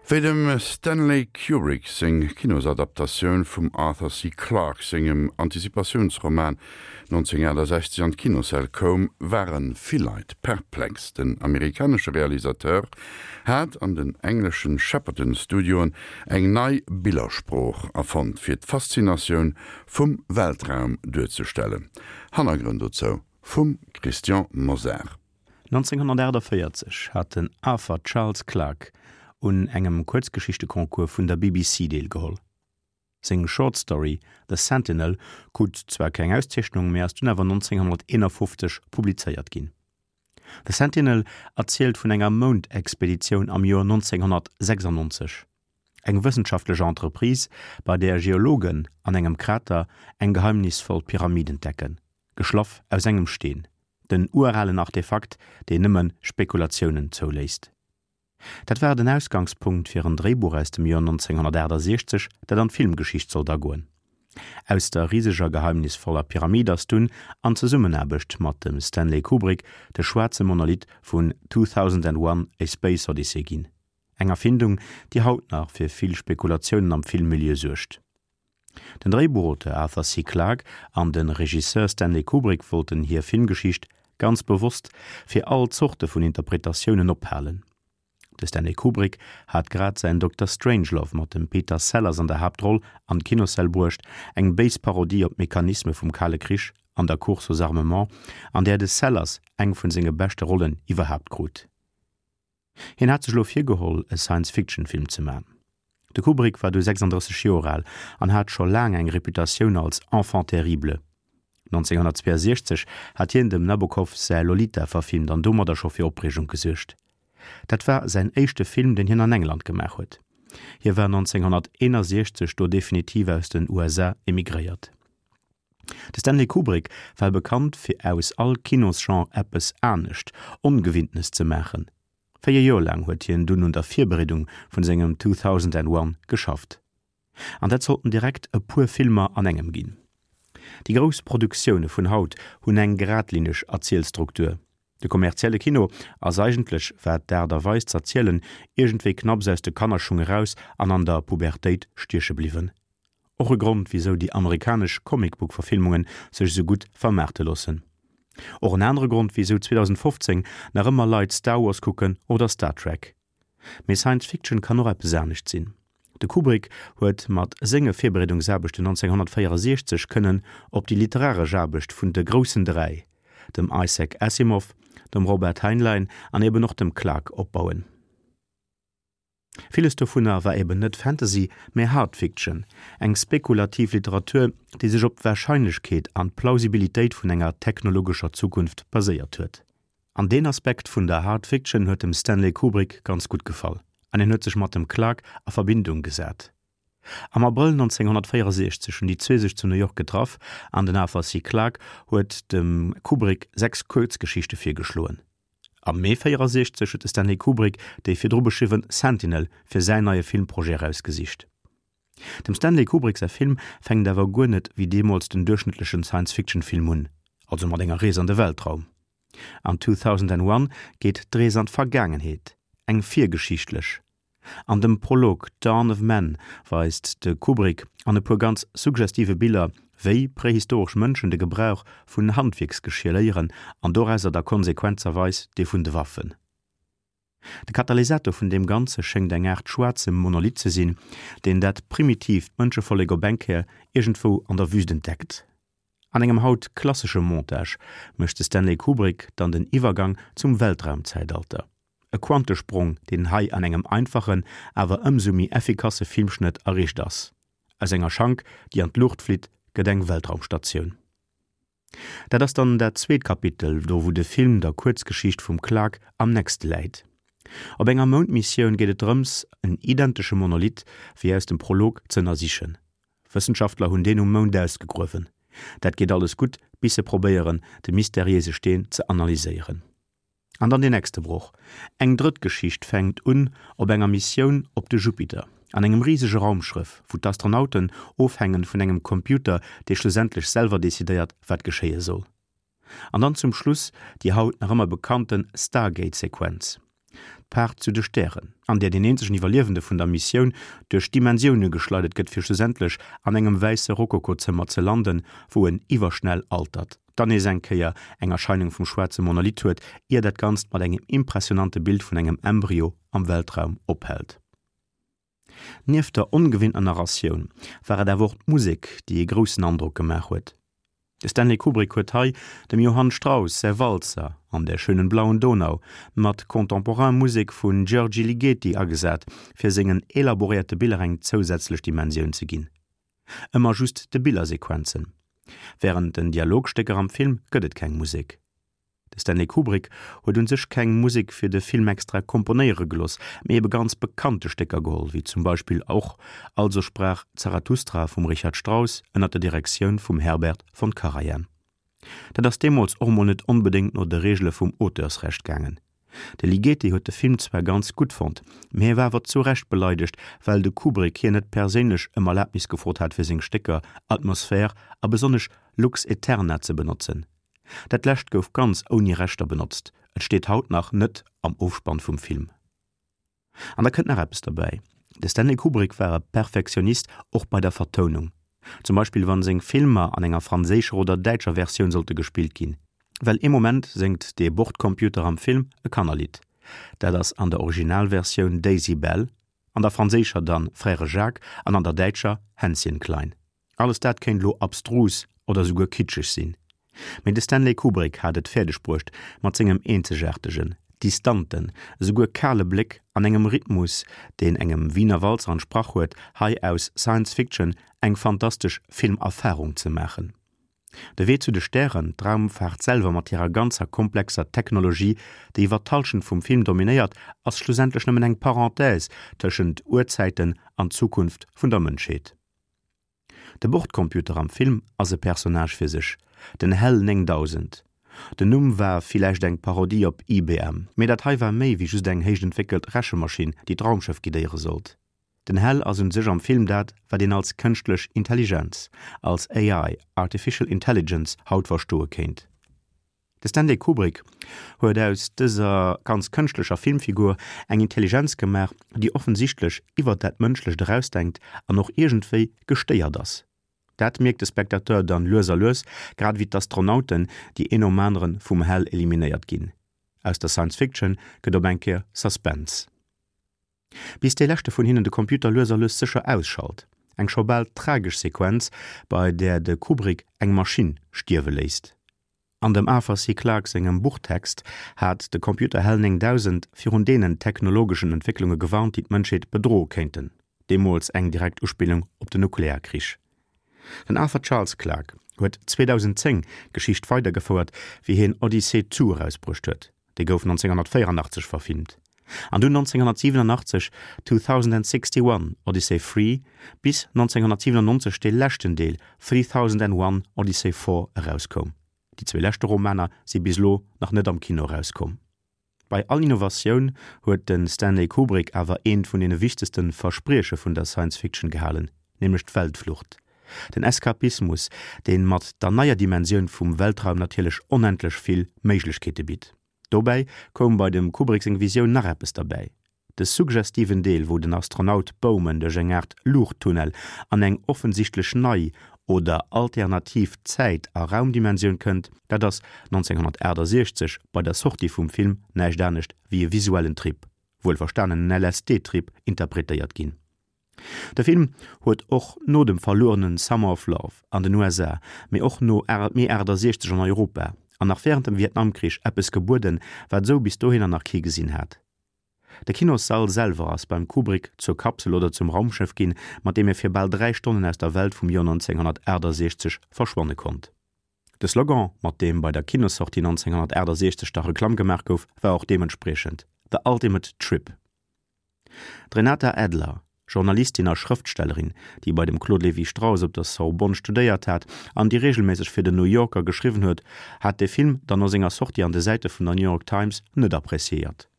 Wéi dem Stanley Kubrick seng Kinosadaptatioun vum Arthur C. Clarke sengem Antizipatiounsroman 1968 an d'Kinossäll koum, ware vill Leit perplex. Den amerikanesche Realisateur hat an den engleschen Shepperton Studioen eng nei Billersprooch erfonnt, fir d'Faszinatioun vum Weltraum duerzestellen. Hannergrënn dozou vum Christian Mosar. 1948 hat den Arthur Charles Clarke un engem Kuerzgeschichteconcours vun der BBC deelgeholl. Seng Short Story The Sentinel krut zwar keng Auszeechnung, mä ass dunn awer 1951 publizéiert ginn. The Sentinel erzielt vun enger Moundexpeditioun am Joer 1996, eng wëssenschaftlech Entreprise, bei där Geologen an engem Krater eng geheimnisvoll Pyramid entdecken, geschlaff aus engem Steen. Den uralen Artefakt, deen nëmme Spekulatiounen zouléisst. Dat war den Ausgangspunkt fir en Dréibuch aus dem Joer 1968, dat an d'Filmgeschicht sollt agoen. Aus der riseger geheimnisvoller Pyramid ass dunn, an Zesummenaarbecht mat dem Stanley Kubrick, de schwaarze Monolith vun 2001, A Space Odyssey ginn. Eng Erfindung, déi haut nach fir vill Spekulatiounen am Filmmilieu suergt. Den Dréibuchauteur Arthur C. Clarke an de Regisseur Stanley Kubrick wollten hir Filmgeschicht ganz bewosst fir all Zorte vun Interpretatiounen ophalen. De Stanley Kubrick hat grad säin Dokter Strangelove mat dem Peter Sellers an der Haaptroll an d'Kinossäll bruecht, eng béis Parodie op d'Mechanisme vum Kale Krich an der Course aux armements, an där de Sellers eng vun senge beschte Rollen iwwerhaapt krut. Hien hat sech elo virgeholl, e Science-Fiction-Film ze man. De Kubrick war du 36 Joer al an hat scho laang eng Reputatioun als Enfant terrible. 1962 hat hien dem Nabokov säi Lolita verfilmt an domadder scho fir Opreegung gesuergt. Dat war säin éischte Film, deen hien an England gemaach huet. Hie war 1961 do definitiv aus den USA emigréiert. De Stanley Kubrick war bekannt fir aus all Kinosgenre eppes anescht, Ongewinntenes ze maachen. 4 Joer laang huet hien dunn un der Virbereedung vun sengem 2001 geschafft. An dat sollten direkt e puer Filmer an engem ginn. Déi grouss Produktioune vun haut hunn eng geradlineg Erzielstruktur. De kommerzielle Kino ass eigentlech, wat d'Aart a Weis z'erzielen, iergendwéi knapps aus de Kannerschung eraus an an der Pubertéit stieche bliwwen. Och e Grond wisou déi amerikanesch Comic-Book-Verfilmungen sech esou gutt vermaarte loossen. Och en anere Grond wisou 2015 nach ëmmer Leit Star Wars kucken oder Star Trek. Mee Science Fiction kann och eppes anescht sinn. De Kubrick huet mat senge Virbereedungsaarbechten 1964 kënnen op déi literaresch Aarbecht vun de groussen 3, dem Isaac Asimov, dem Robert Heinlein an eben och dem Clarke opbauen. Villes dovunner war eben net Fantasy, mä Hard Fiction, eng spekulativ Literatur, déi sech op d'Warscheinlechkeet an d'Plausibilitéit vun enger technologescher Zukunft baséiert huet. An deen Aspekt vun der Hard Fiction huet dem Stanley Kubrick ganz gutt gefall an hien huet sech mat dem Clarke a Verbindung gesat. Am Abrëll 1964 hunn déi zwee sech zu New York getraff an den Arthur C. Clarke huet dem Kubrick 6 Kuerzgeschichte virgeschloen. Am Mee 64 huet de Stanley Kubrick déi virdru beschriwwen Sentinel fir säin neie Filmprojet erausgesicht. Dem Stanley Kubrick säi Film fänkt awer guer net wéi deemools den duerchschnëttlechen Science-Fiction-Film un, also mat enger Rees an de Weltraum. An 2001 geet d'Rees an d'Vergaangenheet, eng virgeschichtlech. An dem Prolog Dawn of Man weist de Kubrick an e puer ganz suggestive Biller, wéi prehistoresch Mënschen de Gebrauch vun Handwierksgeschier léieren an dorauser da konsequenzerweis dee vun de Waffen. De Katalysator vun deem Ganze schéngt eng Aart schwaarze Monolith ze sinn, deen dat primitiivt Mënschevollek op eng Kéier iergendwou an der Wüst entdeckt. An engem haut klassesche Montage mécht de Stanley Kubrick dann den Iwwergang zum Weltraumzäitalter. E Quantesprong, deen hei an engem einfachen, awer ëmsou méi effikasse Filmschnëtt erreecht ass. Aus enger Schank, déi an d'Luucht flitt, gëtt eng Weltraumstatioun. Dat ass dann dat zweet Kapitel, do wou de Film der Kuerzgeschicht vum Clarke am nächste läit. Op enger Moundmissioun geet et drëms, en identesche Monolith wéi aus dem Prolog ze ënnersichen. Wëssenschaftler hunn deen um Mound ausgegruewen. Dat geet alles gutt, bis se probéieren, de mysteriéise Steen ze analyséieren. An dann deen nächste Broch. Eng drëtt Geschicht fänkt un op enger Missioun op de Jupiter, an engem risege Raumschrëff, wou d'Astronauten ofhängen vun engem Computer, dee schlussendlech selwer decidéiert, wat geschéie soll. An dann zum Schluss déi haut nach ëmmer bekannte Stargate-Sequenz. D'Paart zu de Stären, an där deen eenzegen Iwwerliewende vun der Missioun duerch Dimensioune geschleidert gëtt fir schlussendlech an engem wäisse Rokokozëmmer ze landen, wou en iwwerschnell altert, dann nees eng Kéier eng Erscheinung vum schwaarze Monolith huet, ier dat Ganzt mat engem impressionante Bild vun engem Embryo am Weltraum ophält. Nieft der ongewinnter Narratioun war et awer och d'Musek, déi ee groussen Androck gemaach huet. De Stanley Kubrick huet hei dem Johann Strauss säi Walzer An der schönen blauen Donau mat contemporain Musek vun György Ligeti agesat, fir sengen elaboréierte Biller eng zousätzlech Dimensioun ze ginn. Ëmmer just de Billersequenzen. Wärend den Dialogstécker am Film gëtt et keng Musek. De Stanley Kubrick huet un sech keng Musek fir de Film extra komponéiere gelooss, mee ebe ganz bekannte Stécker geholl, wéi zum Beispill och Also sprach Zarathustra vum Richard Strauss ënner der Direktioun vum Herbert von Karajan. Dat ass deemools och mol net onbedéngt no de Reegele vum Auteursrecht gaangen. De Ligeti huet de Film zwar ganz gutt fonnt, mee hie war awer zu Recht beleidegt, well de Kubrick hien net perséinlech ëm Erlabnis gefrot hat fir seng Stécker Atmosphäre a besonnesch Lux Aeterna ze benotzen. Dat lescht gouf ganz ouni Rechter benotzt, et steet haut nach net am Ofspann vum Film. An da kënnt nach eppes derbäi, De Stanley Kubrick war e Perfektionist och bei der Vertounung. Zum Beispill wann seng Filmer an enger franséischer oder däitscher Versioun sollte gespillt ginn. Well ee Moment séngt dee Bordcomputer am Film e Kannerlidd. Dat ass an der Originalversioun Daisy Bell, an der franséischer dann Frère Jacques an an der däitscher Hänschen Klein. Alles dat kéint elo abstrus oder souguer kitscheg sinn, mee de Stanley Kubrick hat et fäerdeg bruecht, mat sengem eenzegaartegen, distanten, esouguer kale Bléck an engem Rhythmus, deen engem Wiener Walzer entsprach huet, hei aus Science Fiction eng fantastesch Filmerfarung ze maachen. De Wee zu de Stären, d'Raumfaart selwer mat hirer ganzer komplexer Technologie, déi iwwer d'Hallschent vum Film dominéiert, ass schlussendlech nëmmen eng Parenthèse tëschent Urzäiten an Zukunft vun der Mënschheet. De Bordcomputer am Film ass e Personnage fir sech, den Hal 9000. Den Numm war villäicht eng Parodie op IBM, mee dat hei war méi wéi just eng héich entwéckelt Rechemaschinn, déi d'Raumschëff guidéiere sollt. Den Hal ass un sech am Film dat, wat een als kënschtlech Intelligenz, als AI, Artificial Intelligence, haut verstoe kéint. De Stanley Kubrick huet aus dëser ganz kënschtlecher Filmfigur eng Intelligenz gemaach, déi offensichtlech iwwer dat Mënschlecht erausdenkt an och iergendwéi gestéiert ass. Dat mierkt de Spectateur dann lues a lues, grad ewéi d'Astronauten, déi een nom anere vum Hal eliminéiert ginn. Aus der Science Fiction gëtt op eng Kéier Suspense. Bis dee leschte vun hinnen de Computer lues a lues sécher ausschalt. Eng scho bal tragesch Sequenz, bei där de Kubrick eng Maschinn stierwe léisst. An dem Arthur C. Clarke sengem Buchtext hat de Computer Hal 9000 virun deenen technologeschen Entwécklunge gewarnt, déi d'Mënschheet bedroe kéinten. Deemools eng direkt Uspillung op den Nuklearkrich. Den Arthur Charles Clarke huet 2010 d'Geschicht weidergefouert, wéi hien Odyssey 2 erausbruecht huet. Dee gouf 1984 verfilmt. An dunn 1987 2061 Odyssey 3, bis 1997 dee leschten Deel 3001 Odyssey 4 erauskoum. Déi zwee leschte Romaner si bis elo nach net am Kino erauskomm. Bei all Innovatioun huet de Stanley Kubrick awer eent vun deene wichtegste Versprieche vun der Science Fiction gehalen, nämlech d'Weltflucht. Den Eskapismus, dee mat der neier Dimensioun vum Weltraum natierlech onendlech vill Méiglechkeete bitt. Dobäi koum bei dem Kubrick seng Visioun nach eppes derbäi, de suggestiven Deel, wou den Astronaut Bowman duerch eng Aart Luuchttunnel an eng offensichtlech nei oder alternativ Zäit a Raumdimensioun kënnt, dat ass 1968 bei der Sortie vum Film näischt anescht wéi e visuellen Trip, wuelverstanen en LSD-Trip, interpretéiert ginn. De Film huet och no dem verluerenen Summer of Love an den USA, mee och no Mee 68 an Europa an nach wärend dem Vietnamkrich eppes gebueden, wat esou bis dohinner nach kee gesinn hat. De Kinossall selwer ass beim Kubrick zur Kapsel oder zum Raumschëff ginn, mat deem e fir bal 3 Stonnen aus der Welt vum Joer 1968 verschwanne konnt. De Slogan, mat deem bei der Kinossortie 1968 da Reklamm gemaach gouf, war och deementspriechend, The Ultimate Trip. D'Renata Adler, Journalistin a Schrëftstellerin, déi bei dem Claude Lévi-Strauss op der Sorbonne studéiert hat an déi reegelméisseg fir den New Yorker geschriwwen huet, hat de Film dann no senger Sortie an de Säite vun der New York Times net appreciéiert.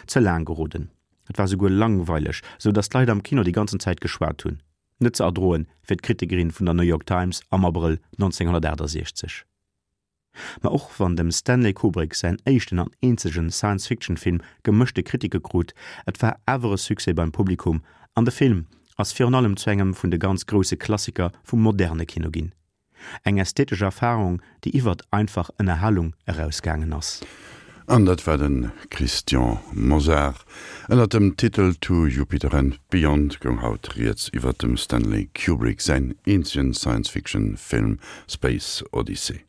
Ze laang geroden, et war souguer langweileg, sou datt d'Leit am Kino déi ganzen Zäit geschwat hunn. Net ze erdroen fir d'Kritikerin vun der New York Times am Abrëll 1968. Ma och wann dem Stanley Kubrick säin éischten an eenzegen Science-Fiction-Film gemëschte Kritike krut, et war awer e Succès beim Publikum an de Film ass virun allem zu engem vun de ganz grousse Klassiker vum moderne Kino ginn. Eng ästhetesch Erfarung, déi iwwert einfach Ënnerhalung erausgaangen ass. An dat war de Christian Mosar. Ënnert dem Titel To Jupiter and Beyond goung haut rieds iwwert dem Stanley Kubrick säin eenzegen Science-Fiction-Film Space Odyssey.